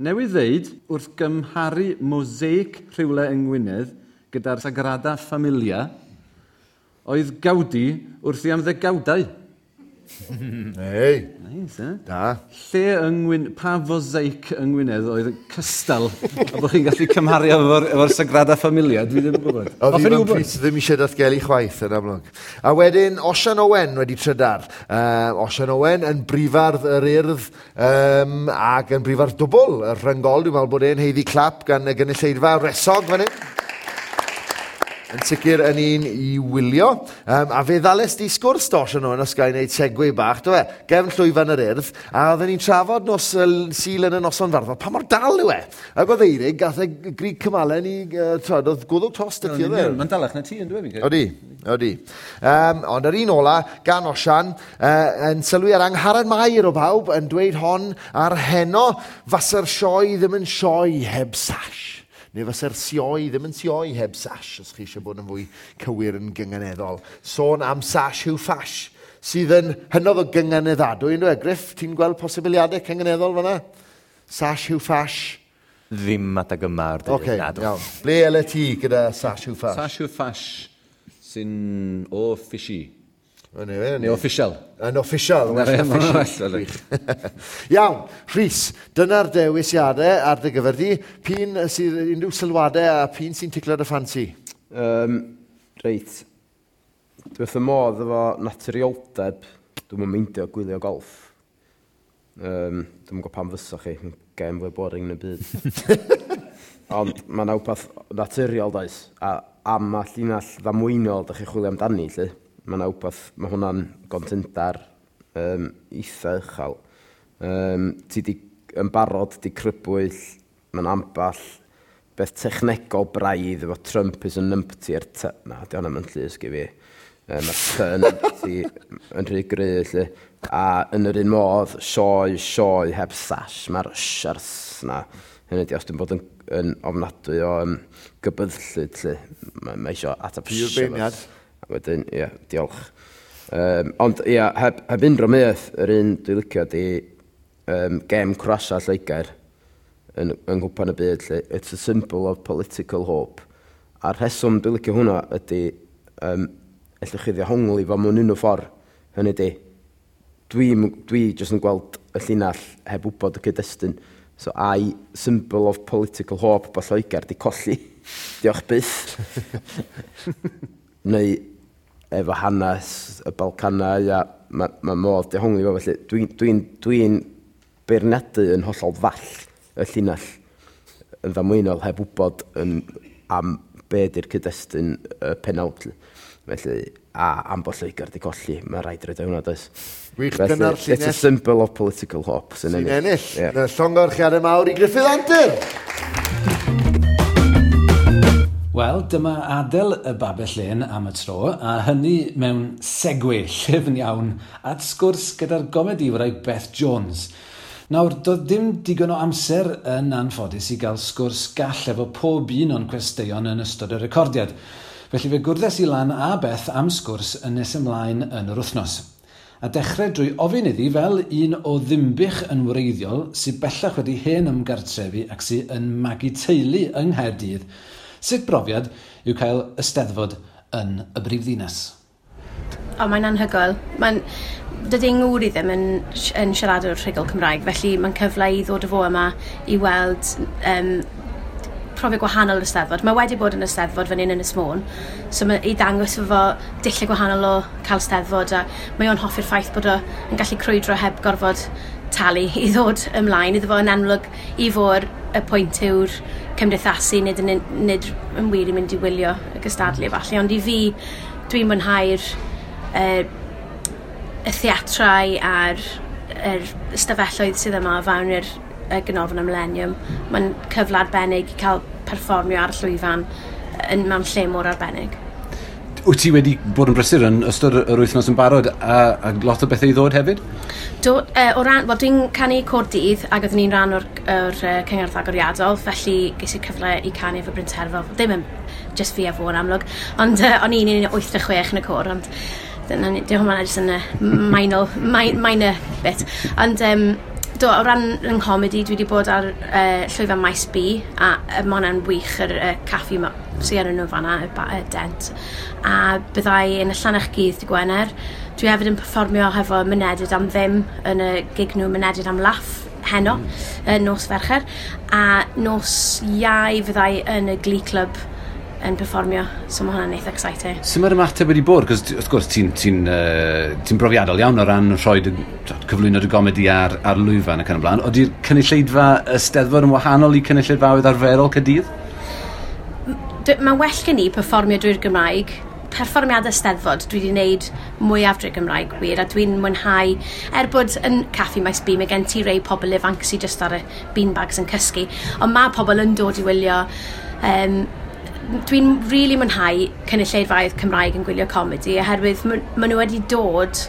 newydd ddeud wrth gymharu mosaic rhywle yng Ngwynedd gyda'r Sagrada Familia oedd Gaudi wrthi am ddegawdau. Ei. Nice, eh? Da. Lle yng Ngwyn... Pa fosaic yng Ngwynedd oedd cystal a bod chi'n gallu cymharu efo'r Sagrada Familia? Dwi ddim yn gwybod. Oedd Hoffwn i Ifan wybod. Prys ddim eisiau datgelu chwaith yn amlwg. A wedyn Osian Owen wedi trydar. Osian Owen yn brifardd yr Urdd ac yn brifardd dwbl. Y rhyngol, dwi'n meddwl bod e'n haeddu clap gan y gynulleidfa resog fan hyn. Yn sicr yn un i wylio. A fe ddales di sgwrs do, Osian Owen, os ga i wneud segue bach, do fe? Gefn llwyfan yr Urdd, a oedden ni'n trafod nos Sul yn y noson farddol, pa mor dal yw e? Ac oedd Eirig, gath e grig cymalen i, twod, oedd gwddwg tost y ti oedd e? Mae'n dalach na ti yn dweud, fi'n credu. Odi, odi. Ond yr un ola, gan Osian, yn sylwi ar Angharad Mair o bawb, yn dweud hon ar heno, fasa'r sioe ddim yn sioe heb sash. Neu fasa'r sioe ddim yn sioe heb sash, os chi eisiau bod yn fwy cywir yn gynganeddol. Sôn am sash yw ffash, sydd yn hynod o gynganeddadwy, ynddo e? Griff, ti'n gweld posibiliadau cynganeddol fan'na? Sash yw ffash. Ddim adeg yma o'r dydd. Oce, na, dw. iawn. Ble ele ti gyda sash yw ffash? Sash yw ffash sy'n o fishy. Neu Neu official. Yn official. Na, well ie, na ma' hwnna'n official. well, Gwych. Iawn, Rhys, dyna'r dewisiadau ar dy gyfer di. P'un sydd unrhyw sylwadau a p'un sy'n ticlo dy ffansi? Reit. Dwi wrth y modd efo naturioldeb. Dwi'm yn meindio gwylio golf. Dwi'm yn gwybod pam fysa chi. Mae'n gêm fwy boring yn y byd. Ond mae yna wbath naturiol, does? A am y llinell ddamweiniol dach chi'n chwilio amdani, lle. Mae yna wbath, mae hwnna'n gontendar eitha uchel. Ti di yn barod, di crybwyll, mae'n amball beth technegol braidd efo Trump is a numpty ar t... Na, di hwnna'n mynd llusg i fi. Mae'r T numpty yn rhy gry, lle. A yn yr un modd, sioe, sioe heb sash, mae'r sh a'r s na. Hynny ydi, os dwi'n bod yn ofnadwy o gybyddllyd, lle. Mae isio ateb Pur sh efo beirniad. s. A wedyn, ie, diolch. Ond, ie, heb unrhyw meth, yr un dwi'n licio di gem Croatia Lloegr yn nghwpan y byd, lle. It's a symbol of political hope. A'r rheswm dwi'n licio hwnna ydy, ellwch chi ddehongli fo mewn unrhyw ffordd. Hynny ydi, dwi jyst yn gweld y llinell heb wybod y cyd-destun. So, ai symbol of political hope bod Lloegr di colli. Diolch byth. Neu efo hanes y Balcanau, a ma modd dehongli fo, felly dwi'n beirniadu yn hollol ddall y llinell yn ddamweiniol heb wybod am be di'r cyd-destun y penawd. Felly, a am bod Lloegr di colli, mae rhaid roed o hwnna, does? Gwych, Felly, dyna'r it's a llinell. symbol of political hope sy'n Sy'n ennill. ennill. Ie. Na, llongyfarchiadau mawr i Gruffydd Antur. Wel, dyma adael y babell lên am y tro, a hynny mewn segue llyfn iawn at sgwrs gyda'r gomediwraig Beth Jones. Nawr, doedd dim digon o amser yn anffodus i gael sgwrs gall efo pob un o'n cwesteion yn ystod y recordiad. Felly fe gwrddes i lan a Beth am sgwrs yn nes ymlaen yn yr wythnos. A dechrau drwy ofyn iddi fel un o Ddinbych yn wreiddiol sydd bellach wedi hen ymgartrefu ac sydd yn magu teulu yng Nghaerdydd, sut brofiad yw cael ysteddfod yn y brifddinas? O, mae'n anhygoel. Dydy ngŵr i ddim yn siaradwr rhugl Cymraeg, felly mae'n cyfle i ddod o fo yma i weld profiad gwahanol o'r Eisteddfod. Mae wedi bod yn Eisteddfod fan hyn yn Ynys Môn, so mae i ddangos efo dulliau gwahanol o cael Eisteddfod, a mae o'n hoffi'r ffaith bod o yn gallu crwydro heb gorfod talu i ddod ymlaen. Iddo fo yn amlwg i fod y pwynt yw'r cymdeithasu, nid yn wir i mynd i wylio y gystadlu falle, ond i fi dwi'n mwynhau'r y theatrau a'r yr ystafelloedd sydd yma o fewn i'r Ganolfan y Millennium. Mae'n cyfle arbennig i cael perfformio ar y llwyfan mewn lle mor arbennig. Wyt ti wedi bod yn brysur yn ystod yr wythnos yn barod a lot o bethau i ddod hefyd? Do, o ran, wel, dwi'n canu côr dydd ac oeddwn i'n rhan o'r cyngerdd agoriadol, felly ges i'r cyfle i canu efo Bryn Terfel. Ddim yn just fi a fo yn amlwg, ond o'n i'n 1 86 yn y côr, ond dyna ni, dim hwnna jyst yn y minor bit. Ond do, o ran yng nghomedi, dwi wedi bod ar llwyfan Maes B, a ma' hwnna'n wych, yr caffi sydd yn nhw fanna, y Dent. A byddai yn y Llannerch Gydd dy Gwener. Dwi hefyd yn perfformio hefo Mynediad am Ddim yn y gig nhw Mynediad am Laff heno, nos Fercher. A nos Iau fyddai yn y Glee Club yn perfformio, so mae hwnna'n eitha exciting. Sut mae'r ymateb wedi bod? Cos wrth gwrs ti'n brofiadol iawn o ran rhoi cyflwyno dy gomedi ar lwyfan ac yn y blaen. Oedi'r cynulleidfa y Steddfod yn wahanol i cynulleidfaoedd arferol Caerdydd? Mae'n well gen i perfformio drwy'r Gymraeg. Perfformiadau Steddfod dwi wedi wneud mwyaf drwy'r Gymraeg wir, a dwi'n mwynhau, er bod yn Caffi Maes B, mae gen ti rei pobl ifanc sydd just ar y beanbags yn cysgu, ond mae pobl yn dod i wylio. Dwi'n really mwynhau cynulleidfaoedd Cymraeg yn gwylio comedi, oherwydd ma nhw wedi dod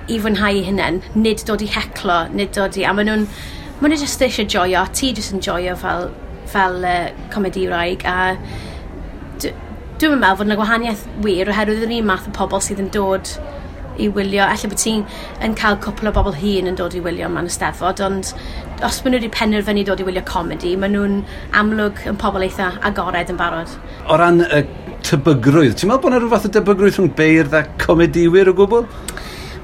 i fwynhau eu hunain, nid dod i heclo, nid dod i... A ma nhw just eisiau joio, ti jyst yn joio fel comediwraig, a dwi'n meddwl fod yna gwahaniaeth wir, oherwydd yr un math o pobl sydd yn dod i wylio. Ella bod ti'n yn cael cwpl o bobl hŷn yn dod i wylio mewn Eisteddfod, ond os maen nhw wedi penderfynu dod i wylio comedi, maen nhw'n amlwg yn pobl eitha agored yn barod. O ran y tebygrwydd, ti'n meddwl bod yna rhyw fath o debygrwydd rhwng beirdd a comediwyr o gwbl?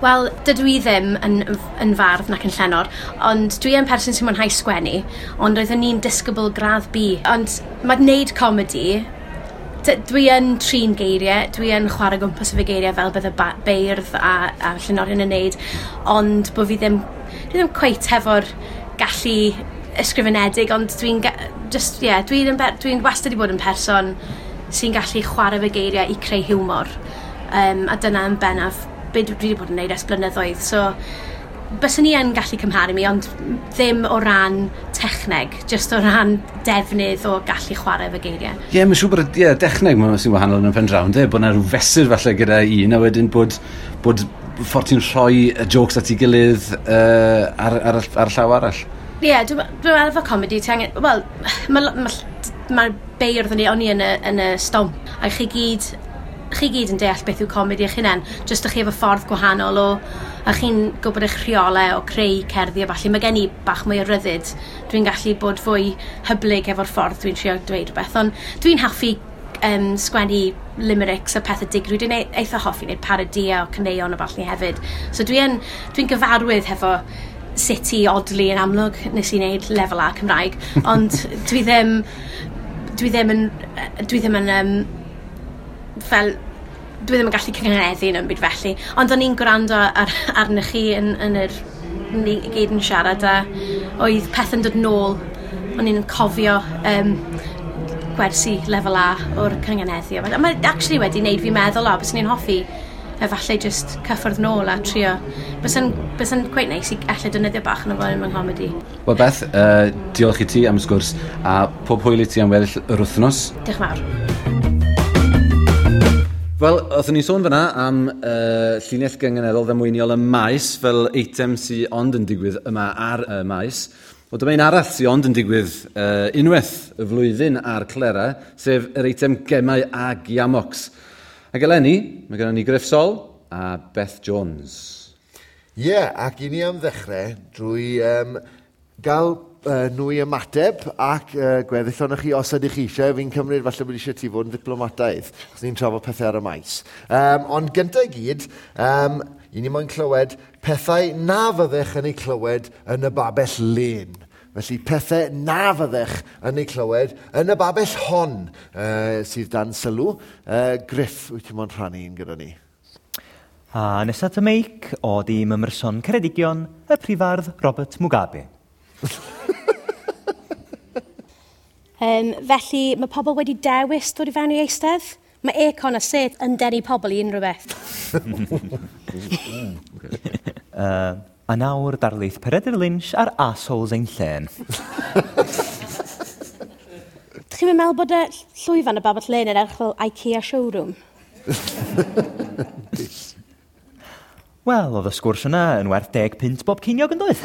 Wel, dydw i ddim yn fardd nac yn llenor, ond dwi yn person sy'n mwynhau sgwennu, ond oeddwn i'n disgybl gradd B. Ond mae wneud comedi, dwi yn trin geiriau, dwi yn chwarae gwmpas efo geiriau fel bydde beirdd a llenorion yn neud, ond bod fi ddim, dwi ddim cweit hefo'r gallu ysgrifenedig, ond dwi'n just, yeah, dwi wastad wedi bod yn person sy'n gallu chwarae efo geiriau i creu hiwmor. A dyna yn bennaf be dwi wedi bod yn neud ers blynyddoedd. So, byswn i yn gallu cymharu mi, ond ddim o ran techneg, just o ran defnydd o gallu chwarae efo geiriau. Ie, yeah, mae'n siŵr bod y dechneg mae'n sy'n wahanol yn y pen draw, ynde? Bod yna rhyw fesur falle gyda un, a wedyn bod ffordd ti'n rhoi y jokes at ei gilydd ar y llaw arall. Ie, yeah, dwi meddwl efo comedi, ti angen... Wel, mae ma beirdd o'n i yn y Stomp, a chi gyd yn deall beth yw comedi eich hunain, jyst ych chi efo ffordd gwahanol o, a chi'n gwybod eich rheolau o creu cerddi a falle. Mae gen i bach mwy o ryddid. Dwi'n gallu bod fwy hyblyg efo'r ffordd dwi'n trio dweud rhywbeth, ond dwi'n hoffi sgwennu limericks a pethau digri. Dwi'n eitha hoffi wneud parodia o caneuon a ballu hefyd. So dwi'n dwi gyfarwydd hefo sut i odli yn amlwg. Nes i wneud lefel A Cymraeg, ond dwi ddim yn fel dwi ddim yn gallu cynghaneddu yn byd felly. Ond o'n i'n gwrando arnych chi yn yr ni gyd yn siarad a oedd pethau'n dod nôl. O'n i'n cofio gwersi lefel A o'r cynganeddu. A mae actually wedi wneud fi meddwl, o, byswn i'n hoffi efallai just cyffwrdd nôl a trio. Bysa'n quite nice i ella defnyddio bach yn o fo yn comedi. Wel Beth, diolch i ti am y sgwrs a pob hwyl i ti am weddill yr wythnos. Diolch yn fawr. Wel, oeddwn ni'n sôn fyna am llinell gynganeddol ddamweiniol y maes fel eitem sy'n ond yn digwydd yma ar y maes. Wel, dyma un arall sy'n ond yn digwydd unwaith y flwyddyn ar Clera, sef yr eitem gemau a giamocs. Ac eleni, mae gennym ni Gruff Sol a Beth Jones. Ie, yeah, ac i ni am ddechrau drwy gael nhw i ymateb ac gweddill ohonoch chi os ydych chi eisiau. Fi'n cymryd falle bod eisiau ti fod yn ddiplomataidd, achos ni'n trafod pethau ar y maes. Ond gyntaf i gyd, i ni moyn clywed pethau na fyddech yn ei clywed yn y babell lên. Felly pethau na fyddech yn ei clywed yn y babell hon sydd dan sylw. Griff, wyt ti'n moyn rhannu un gyda ni? A nesaf at y meic o dîm Ymryson Ceredigion, y prifardd Robert Mugabe. Felly mae pobl wedi dewis dod i fewn i eistedd. Mae aircon a sedd yn denu pobl i unrhyw beth. A nawr darlith Peredur Lynch ar Assholes ein Llên. Dych chi'n meddwl bod y llwyfan y Babell Lane yn edrych fel IKEA showroom? Wel, oedd y sgwrs yna yn werth 10 punt bob ceiniog yn doedd?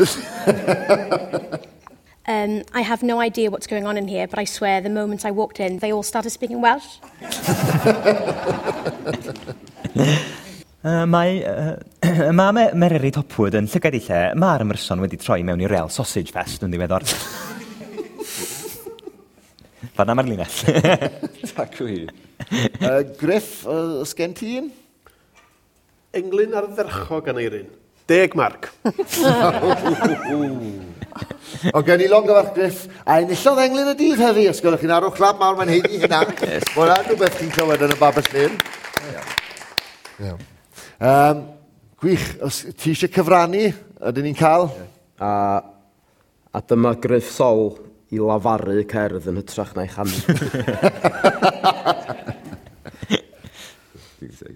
I have no idea what's going on in here, but I swear the moment I walked in, they all started speaking Welsh. Mae mae Mererid Hopwood yn llygad ei lle. Mae'r ymryson wedi troi mewn i real sausage fest yn ddiweddar. Fan'na mae'r linell. Tacw hi. Griff, oes gen ti un? Englyn ardderchog Aneirin. 10 marc. O, gen i longyfarch Griff, a enillodd englyn y dydd heddi, os gwelwch chi'n arwch clap mawr, mae'n haeddu hynna. Mae hwnna'n rhywbeth chi'n clywed yn y Babell Lane. Iawn. Gwych, os ti eisiau cyfrannu, ydyn ni'n cael? A dyma Griff Sol i lafaru cerdd yn hytrach na'i chanu.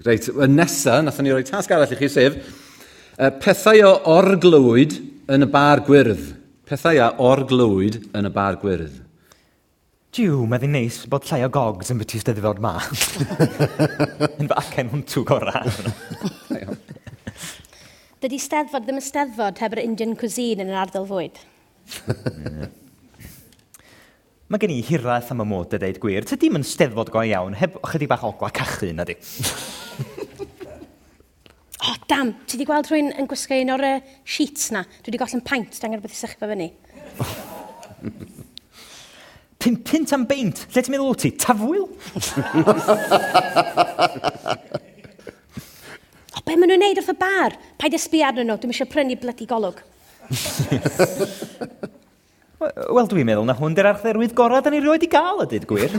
Reit, y nesa, nathon ni roi tasg arall i chi, sef pethau o orglywyd yn y bar gwyrdd. Pethau a orglywyd yn y bar gwyrdd. Jiw, mae ddi'n neis bod llai o gogs yn byti Steddfod ma. Yn fy acen hwntw gorau. Dydy Steddfod ddim yn Steddfod heb yr Indian cuisine yn yr ardal fwyd. Mae gen i hiraeth am y mod a deud gwir. Tydi'm yn Steddfod go iawn, heb ychydig bach o ogla cachu, na di. O, dam, ti di gweld rhywun yn gwisgo un o'r sheets na? Dwi wedi gollen paint, dan rhywbeth i sychu fo fyny. 5 punt am beint. Lle ti'n meddwl wyt ti? Tafwyl? O, be maen nhw'n neud wrth y bar? Paid â sbio arnyn nhw, dwi'm eisiau prynu blydi golwg. Wel, dwi'n meddwl na hwn di'r archdderwydd gorau da ni rioed i gael, a dweud gwir.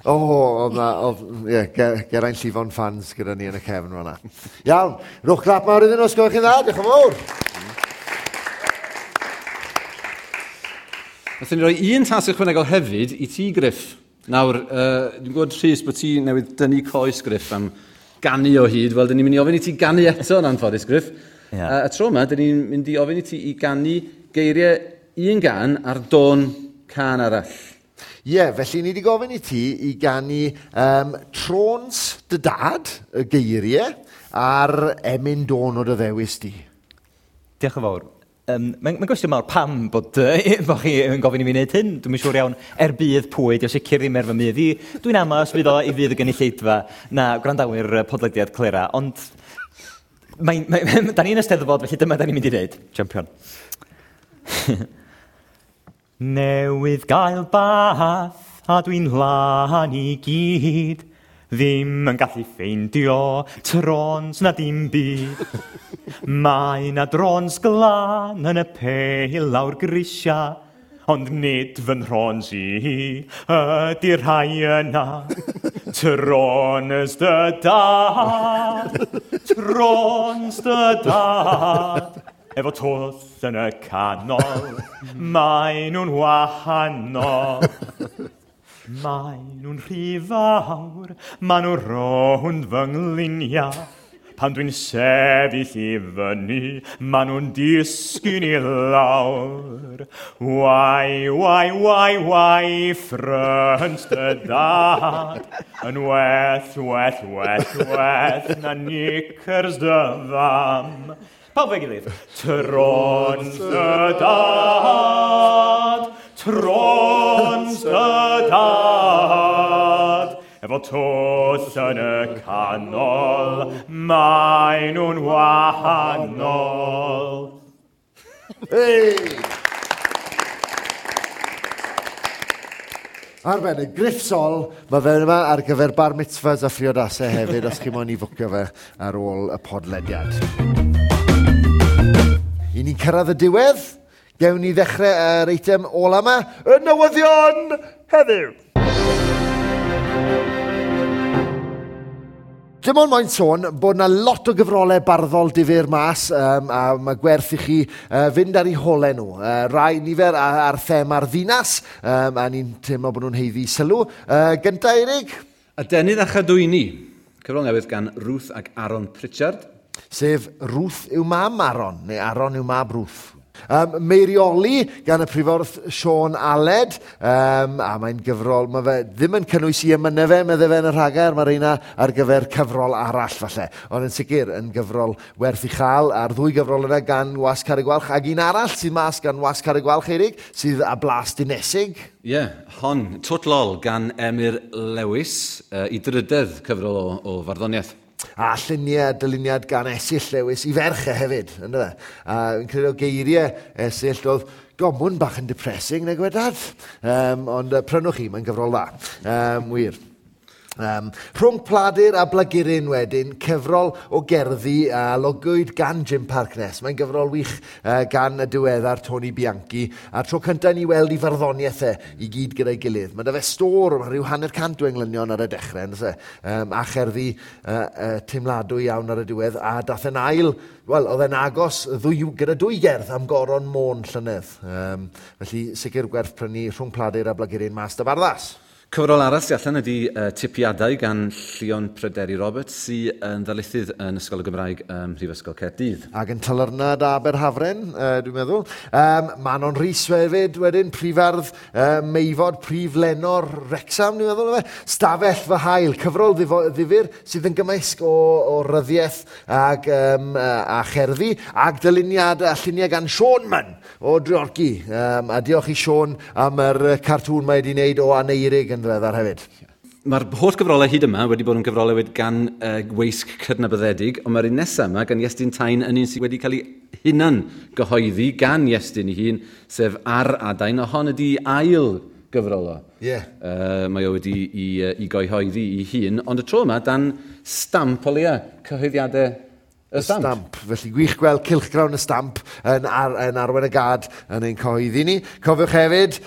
O, oedd na, oedd, ie, Geraint Llifon fans gyda ni yn y cefn fan'na. Iawn, rhowch clap mawr iddyn nhw, os gwelwch chi'n dda, diolch yn fawr. Nathon ni roi un tasg ychwanegol hefyd i ti, Griff. Nawr, dwi'n gwybod, Rhys, bod ti newydd dynnu coes, Griff, am ganu o hyd. Wel, dyn ni'n mynd i ofyn i ti ganu eto yn anffodus, Griff. Y tro yma, dyn ni'n mynd i ofyn i ti i ganu geiriau un gan ar dôn cân arall. Ie, felly ni wedi gofyn i ti i ganu Trôns dy dad, y geiriau, a'r emyn dôn o dy ddewis di. Diolch yn fawr. Mae'n gwestiwn mawr pam bod chi yn gofyn i mi wneud hyn. Dwi'm yn siŵr iawn er budd pwy, dio sicr ddim er fy mudd i. Dwi'n amau os fydd o i fydd y gynulleidfa na gwrandawyr podlediad Clera, ond da ni'n Eisteddfod, felly dyma da ni'n mynd i wneud. Champion. Newydd gael bath a dwi'n lân i gyd. Ddim yn gallu ffeindio trons na dim byd. Mae na drons glân yn y pale lawr grisia, ond nid fy nhrons i ydy'r rhai yna. Trons dy dad, trons dy dad. Efo twll yn y canol, mae nhw'n wahanol. Mae nhw'n rhy fawr, ma nhw'n rownd fy ngliniau. Pan dwi'n sefyll i fyny, ma nhw'n disgyn i lawr. Wai, wai, wai, wai, ffrynt dy dad. Yn well, well, well, well, na knickers dy fam. Pawb efo'i gilydd. Trons dy dad, trons dy dad. Efo twll yn y canol, mae nhw'n wahanol. Hey! Arbennig, Griff Sol, mae fe yma ar gyfer bar mitzvahs a phriodasau hefyd, os chi moyn i fwcio fe ar ôl y podlediad. I ni'n cyrraedd y diwedd, gewn ni ddechrau yr eitem ola yma, y newyddion heddiw. Dim ond moyn sôn bod na lot o gyfrolau barddol difyr mas, a mae gwerth i chi fynd ar eu holau nhw. Rai nifer ar thema'r ddinas, a ni'n teimlo bod nhw'n haeddu sylw. Gynta, Eirig? Adenydd a chadwyni. Cyfrol newydd gan Ruth ac Aaron Pritchard. Sef Ruth yw mam Aaron, neu Aaron yw mab Ruth. Meirioli gan y prifordd Sean Aled, a mae'n gyfrol, mae fe ddim yn cynnwys i emynau fe, medde fe yn y rhagair, mae'r reina ar gyfer cyfrol arall falle, ond yn sicr yn gyfrol werth i chael, a'r ddwy gyfrol yna gan Wasg Carreg Gwalch, ac un arall sydd mas gan Wasg Carreg Gwalch, Eirig, sydd â blas dinesig. Ie, yeah, hon, Twt Lol gan Emyr Lewis, i drydedd cyfrol o farddoniaeth. A lluniau, dyluniad gan Esyll Lewis i ferch e hefyd, ynddo fe? A fi'n credu o geiriau Esyll oedd gomwn bach yn depressing, nag wedad. Ond prynwch chi, mae'n gyfrol dda. Wir. Rhwng Pladur a Blaguryn wedyn, cyfrol o gerddi a logwyd gan Jim Parkness. Mae'n gyfrol wych gan y diweddar Tony Bianchi, a'r tro cyntaf ni weld i farddoniaeth e i gyd gyda'i gilydd. Mae 'da fe stôr, mae rhyw 150 o englynion ar y dechrau, yndoes e? A cherddi teimladwy iawn ar y diwedd, a dath e'n ail, wel, oedd e'n agos gyda dwy gerdd am Goron Môn llynedd. Felly sicr gwerth prynu Rhwng Pladur a Blaguryn mas 'da Barddas. Cyfrol arall sy'n allan ydy Tipiadau gan Llion Pryderi Roberts, sydd yn ddarlithydd yn Ysgol y Gymraeg ym Mhrifysgol Caerdydd. Ac yn Talyrnad Aberhafren, dwi'n meddwl. Manon Rhys hefyd wedyn, prifardd Meifod, prif lenor Wrecsam, dwi'n meddwl. Efe. Stafell fy hael, cyfrol ddifyr sydd yn gymysg o ryddiaeth ag, a cherddi, ag dyluniad a lluniau gan Siôn Munn o Dreorci. A diolch i Siôn am yr cartŵn mae wedi wneud o Aneirig yn ddiweddar hefyd. Mae'r holl gyfrolau hyd yma wedi bod yn gyfrolau wedi gan weisg cydnabyddedig, ond mae'r un nesaf yma gan Iestyn Tyne yn un sydd wedi cael ei hunan gyhoeddi gan Iestyn ei hun, sef Ar Adain, a hon ydi ail gyfrol o. Ie. Mae o wedi i gyhoeddi ei hun, ond y tro yma dan stamp o leia, cyhoeddiadau y Stamp. Stamp. Felly gwych gweld cylchgrawn y Stamp yn arwain y gad yn ein cyhoeddi ni. Cofiwch hefyd,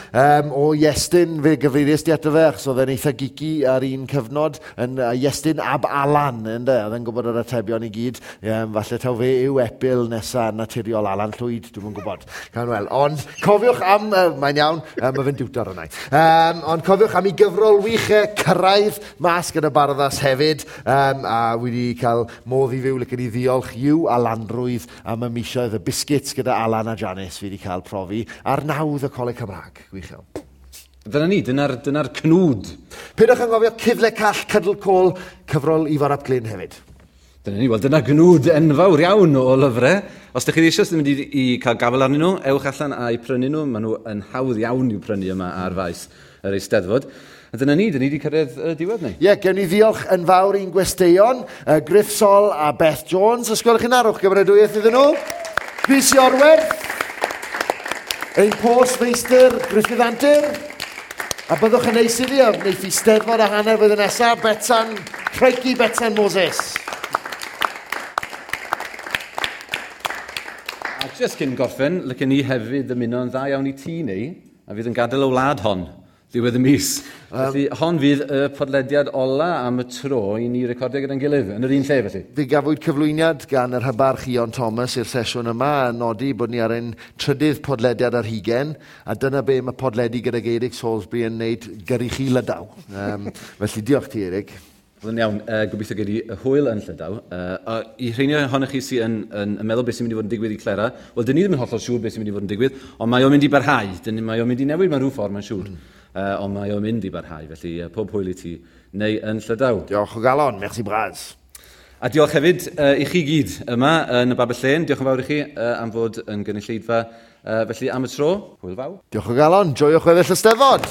o Iestyn, fe gyfeiriais di ato fe, achos oedd e'n eitha geeky ar un cyfnod, yn Iestyn ab Alan, ynde? Oedd e'n gwybod yr atebion i gyd. Falle taw fe yw epil nesa naturiol Alan Llwyd, dwi'm yn gwybod. Cawn weld. Ond cofiwch am, mae'n iawn, mae fe'n diwtor yna. Ond cofiwch am ei gyfrol wych Cyrraedd mas gyda Barddas hefyd, a wedi cael modd i fyw, licen i ddiolch i'w Alanrwydd am y misoedd y biscuits gyda Alan a Janice fi wedi cael profi ar nawdd y Coleg Cymraeg. Gwych iawn. Dyna ni, dyna'r cnwd. Peidiwch anghofio Cyfle Call, Cydl Côl, cyfrol Ifor ap Glyn hefyd. Dyna ni, wel dyna gnwd enfawr iawn o lyfrau. Os ydych chi eisiau sydd yn mynd i cael gafael arnyn nhw, ewch allan a'u prynu nhw. Maen nhw yn hawdd iawn i'w prynu yma ar faes yr Eisteddfod. A dyna ni, dyna ni wedi cyrraedd y diwedd ni. Ie, gewn ni ddiolch yn fawr i'n gwesteion, Gruff Sol a Beth Jones. Os gwelwch chi'n arwch gymeradwyaeth iddyn nhw. Rhys Iorwerth, ein postfeistr Gruffydd Antur. A byddwch yn neis iddi, a wneith i Steddfod a hanner flwyddyn nesaf, Betsan, Crikey Betsan Moses. A jyst cyn gorffen, licen ni hefyd ymuno yn dda iawn i ti neu, a fydd yn gadael y wlad hon ddiwedd y mis. Felly, hon fydd y podlediad ola am y tro i ni recordio gyda'n gilydd, yn yr un lle felly. Fe gafwyd cyflwyniad gan yr hybarch Ion Thomas i'r sesiwn yma, a nodi bod ni ar ein trydydd podlediad ar hugain, a dyna be mae podledu gyda Eirig Salisbury yn wneud gyrru chi Lydaw. Felly diolch ti, Eirig. Wel, yn iawn, gobeithio gei di hwyl yn Llydaw. A i rheini ohonoch chi sydd yn meddwl beth sy'n mynd i fod yn digwydd i Clera, wel, dyn ni ddim yn hollol siŵr beth sy'n mynd i fod yn digwydd, ond mae o'n mynd i barhau. Mae o'n mynd i newid mewn rhyw ffordd, mae'n siŵr. Ond mae o'n mynd i barhau, felly pob hwyl i ti neu yn Llydaw. Diolch o galon, merci bras. A diolch hefyd i chi gyd yma yn y Babell Lên. Diolch yn fawr i chi am fod yn gynulleidfa. Felly am y tro, hwyl fawr. Diolch o galon, joiwch weddill y Steddfod.